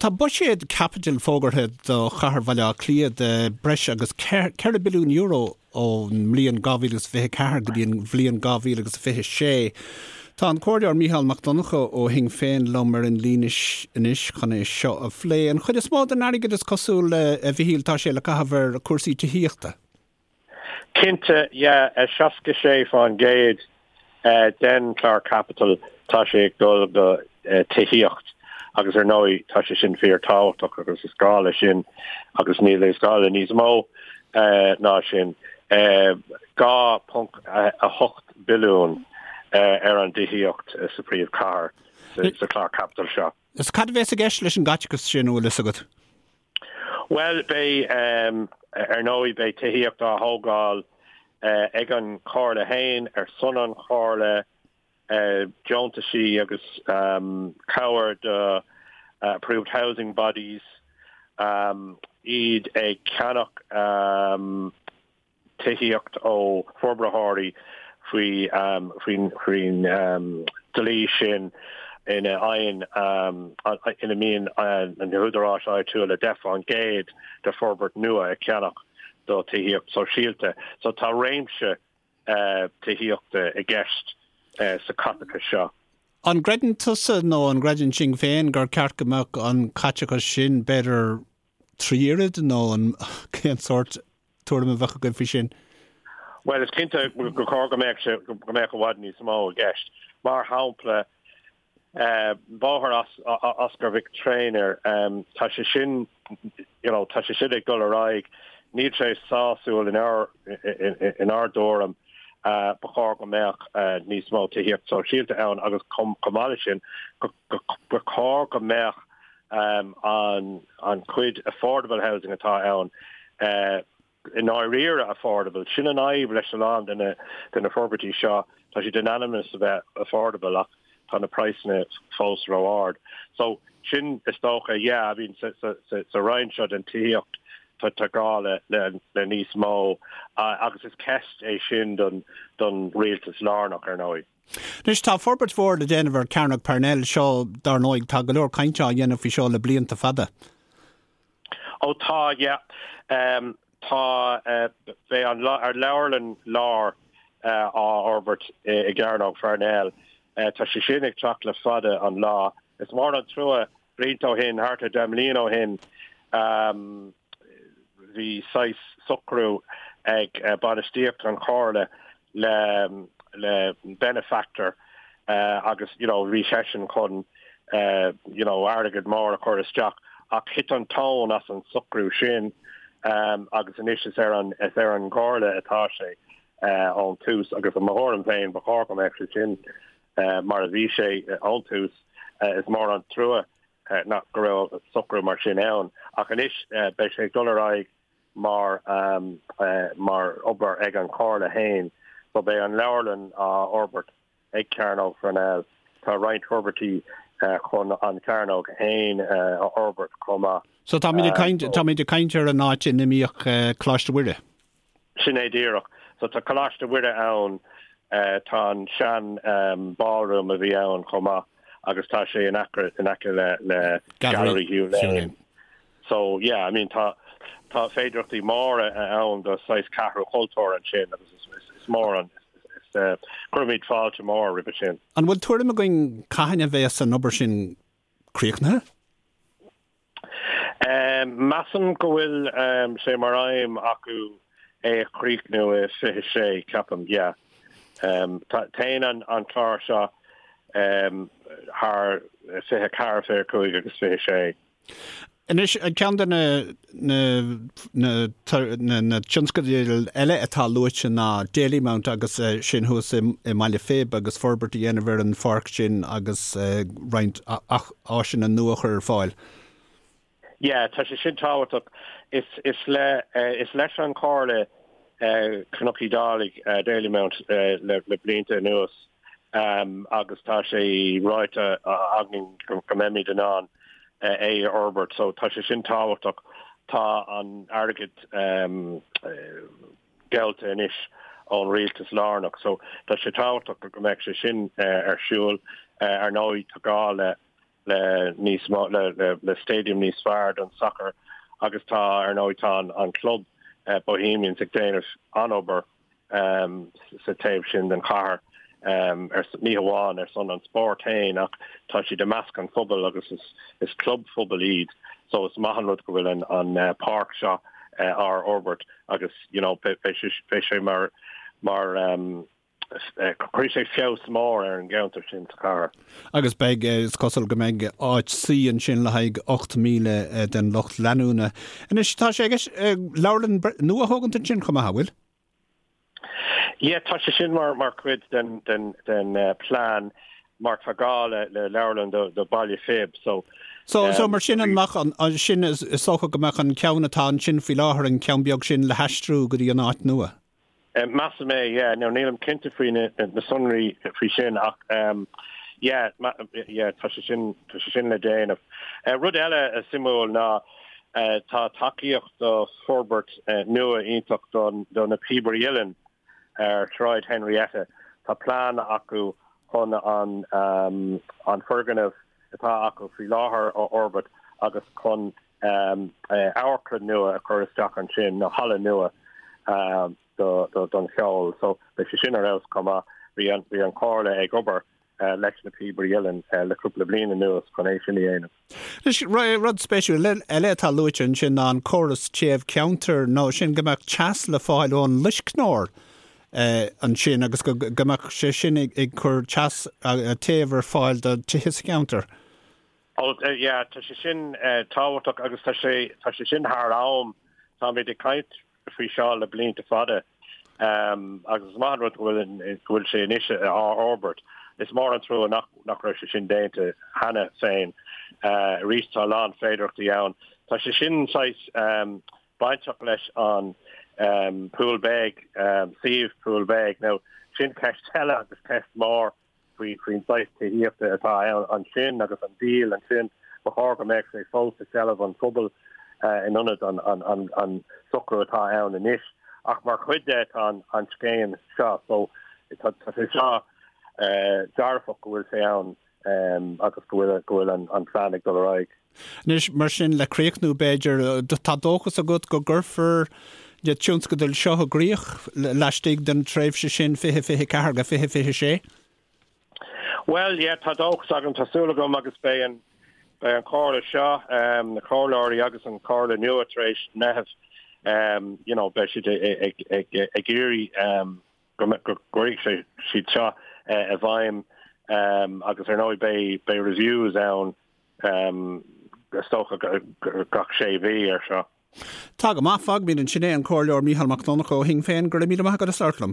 Tá buiséad caipitil fógartha do chathair Bhaile Átha Cliath de breis agus €4 billiún ón mbliain 2024 go dtí an bhliain 2026. Tá an Comhairleoir Mícheál Mac Donncha ó Shinn Féin liom ar an líne anois chun é seo a phlé. An chuid is mó den airgead is cosúil, a Mhichíl, tá sé le caitheamh ar chúrsaí tithíochta. Cinnte, yeah, 66% den chlár caipitil, tá sé ag dul go tithíocht agus ar ndóigh tá sé sin fíor tábhachtach agus is gá le sin agus níl is gá le níos mó ná sin. 2.8 billiún ar an dtithíocht sa phríomhchathair sa chlár caipitil seo. Is cad a bheas i gceist leis an gcaiteachas sin, an bhfuil fhios agat? Bhuel, beidh, ar ndóigh, beidh tithíocht á thógáil ag an Chomhairle féin, ar son an Chomhairle, deontaisí agus cabhair do Approved Housing Bodies, iad ag ceannach tithíocht ó forbraitheoirí faoin dlí sin ina fhaigheann, ina mbíonn na húdaráis áitiúla 10% de forbairt nua ag ceannach do tithíocht sóisialta. So tá réimse tithíochta i gceist sa chaiteachas seo. An gcreideann tusa nó an gcreideann Sinn Féin gur ceart go mbeadh an caiteachas sin b'fhéidir 3 oiread nó an cén sórt tuairim a bheadh agaibh faoi sin? Bhuel, is cinnte gur chóir go mbeadh sé, go mbeadh i bhfad níos mó i gceist. Mar shampla, bóthar Oscar Mhic Thréinir, tá sé sin, you know, tá sé sin ag dul ar aghaidh, níl sé sásúil inár, inár dtuairim. Ba chóir go mbeadh níos mó tithíocht sóisialta ann agus chomh maith leis sin, ba chóir go mbeadh an chuid affordable housing atá ann i ndáiríre affordable. Sin an fhadhb leis a lán de na forbairtí seo, tá siad in ainm is a bheith affordable ach tá na praghsanna fós ró-ard. So sin is dócha, yeah, I mean sa roinn seo den tithíocht tá gá le níos mó agus is ceist é sin don rialtas lárnach ar ndóigh. Anois, tá forbairt mhór le déanamh ar Chearnóg Parnell. Seo, dar ndóigh, tá go leor cainte á dhéanamh faoi seo le blianta fada. Ó tá, yeah. Tá, beidh an leabharlann láir á fhorbairt i gCearnóg Pharnell. Tá sé sin ag teacht le fada an lá. Is mór an trua, blianta ó shin, thart ar 10 mbliana ó shin, bhí saghas socrú ag bainistíocht an Chomhairle le le benefactor agus you know bhí seisean chun you know airgead mór a chur isteach ach thit an tóin as an socrú sin agus anois is ar an is ar an gComhairle atá sé ón tús agus i mo thuairim féin ba chóir go mbeadh sé sin mar a bhí sé ón tús. Is mór an trua nach go raibh socrú mar sin ann ach anois beidh sé ag dul ar aghaidh mar mar obair ag an Chomhairle féin. So beidh an leabharlann á fhorbairt ag Cearnóg Pharnell. Tá roinnt forbairtí chun an Chearnóg féin a fhorbairt chomh maith. So táimid ag caint, táimid ag caint ar an áit ina mbíodh Coláiste Mhuire. Sin é díreach. So tá Coláiste Mhuire ann, tá an sean ballroom a bhí ann chomh maith agus tá sé in aice in aice le le Gallery Hugh Lane. So yeah, I mean tá tá féidearthachtaí móra ann do saghas ceathrú chultúir ansin agus is is mór an is cuirimid fáilte mór roimhe sin. An bhfuil tuairim againn cathain a bheas an obair sin críochnaithe? Measaim go bhfuil sé mar aidhm acu é a chríochnú i 26, ceapaim, yeah. Téann an clár seo thar 24, 25 agus 26. Anois, ceann de na na na tionscadail eile atá luaite ná Dalymount agus sin thuas i mBaile Phib agus forbairt a dhéanamh ar an pháirc sin agus roinnt áiseanna nua a chur ar fáil. Yeah, tá sé sin tábhachtach. Is is le is leis an Chomhairle Cnoc Uí Dhálaigh, Dalymount le le blianta anuas agus tá sé ráite againn go mbeimid in ann é a fhorbairt. So tá sé sin tábhachtach. Tá an airgead geallta anois ón rialtas lárnach. So tá sé tábhachtach go mbeadh sé sin ar siúl. Ar ndóigh tá gá le. le níos mó le le le stadium níos fearr don sacar agus tá ar ndóigh tá an an club Bohemians ag déanamh an-obair sa taobh sin den chathair ar ní hamháin ar son an spóirt féin ach tá siad i measc an phobail agus is is club phobail iad so is maith an rud go bhfuil an an páirc seo á fhorbairt agus you know beidh beidh sé mar mar Cuirfidh sé feabhas mór ar an gceantar sin sa chathair. Agus beidh, is cosúil go mbeidh áit suí ansin le haghaidh 8,000 den lucht leanúna. Anois, tá sé i gceist leabharlann nua a thógaint ansin chomh maith, an bhfuil? Yeah, tá sé sin mar mar chuid den den den plean mar tá gá le le leabharlann do do Baile Phib so So so mar sin an mbeadh an sin is dócha go mbeadh an ceann atá ansin faoi láthair an ceann beag sin le haistriú go dtí an áit nua? Measaim é, yeah. Now nílim cinnte faoi na sonraí faoi sin ach yeah, yeah, tá sé sin, tá sé sin le déanamh. Rud eile suimiúil ná tá tacaíocht do forbairt nua iontach don, do na Píobairí Uilleann ar Shráid Henrietta. Tá plean acu chun an, an foirgneamh atá acu faoi láthair a fhorbairt agus chun amharclann nua a chur isteach ansin, nó halla nua don cheol. So beidh sé sin ar fheabhas chomh maith. Bhí an bhí an Chomhairle ag obair leis na Píobairí Uilleann le cúpla bliain anuas chun é sin a dhéanamh. Anois, rud spéisiúil eile atá luaite ansin ná an córas téamh ceantair, nó sin go mbeadh teas le fáil ón loiscneoir ansin agus go mbeadh sé sin ag cur teas, téamh ar fáil do tithe sa cheantar. Oh yeah, tá sé sin tábhachtach agus tá sé, tá sé sin thar am. Táimid ag caint faoi seo le blianta fada agus is maith an rud go bhfuil, go bhfuil sé anois á fhorbairt. Is mór an trua nach, nach raibh sé sin déanta cheana féin. Arís tá a lán féidearthachtaí ann. Tá sé sin saghas bainteach leis an Poolbeg, suíomh Poolbeg. Now sin ceist eile agus ceist mhór. faoi faoin saghas tithíochta atá ann ansin agus an díol ansin, ba chóir go mbeadh sé fós i seilbh an phobail in ionad an socrú atá ann anois. Ach mar chuid de tá an scéim seo so tá sé seo dearfach go bhfuil sé ann agus go bhfuil go bhfuil an plean ag dul ar aghaidh. Anois, mar sin, le críochnú, b'fhéidir, tá dóchas agat go gcuirfear na tionscadail seo i gcrích laistigh den tréimhse sin 2024 go 2026? Bhuel, yeah, tá dóchas agam, tá súil agam agus beidh an, beidh an chomhairle seo, na comhairleoirí agus an chomhairle nua tar éis Meitheamh, you know, beidh siad ag, ag, ag iarraidh go gcuirfidh siad seo i bhfeidhm agus ar ndóigh beidh, beidh reviews ann is dócha gach sé mhí ar seo. Tá go maith, fágfaimid ansin é, an Comhairleoir Mícheál Mac Donncha ó Shinn Féin, go raibh míle maith agat as labhairt liom.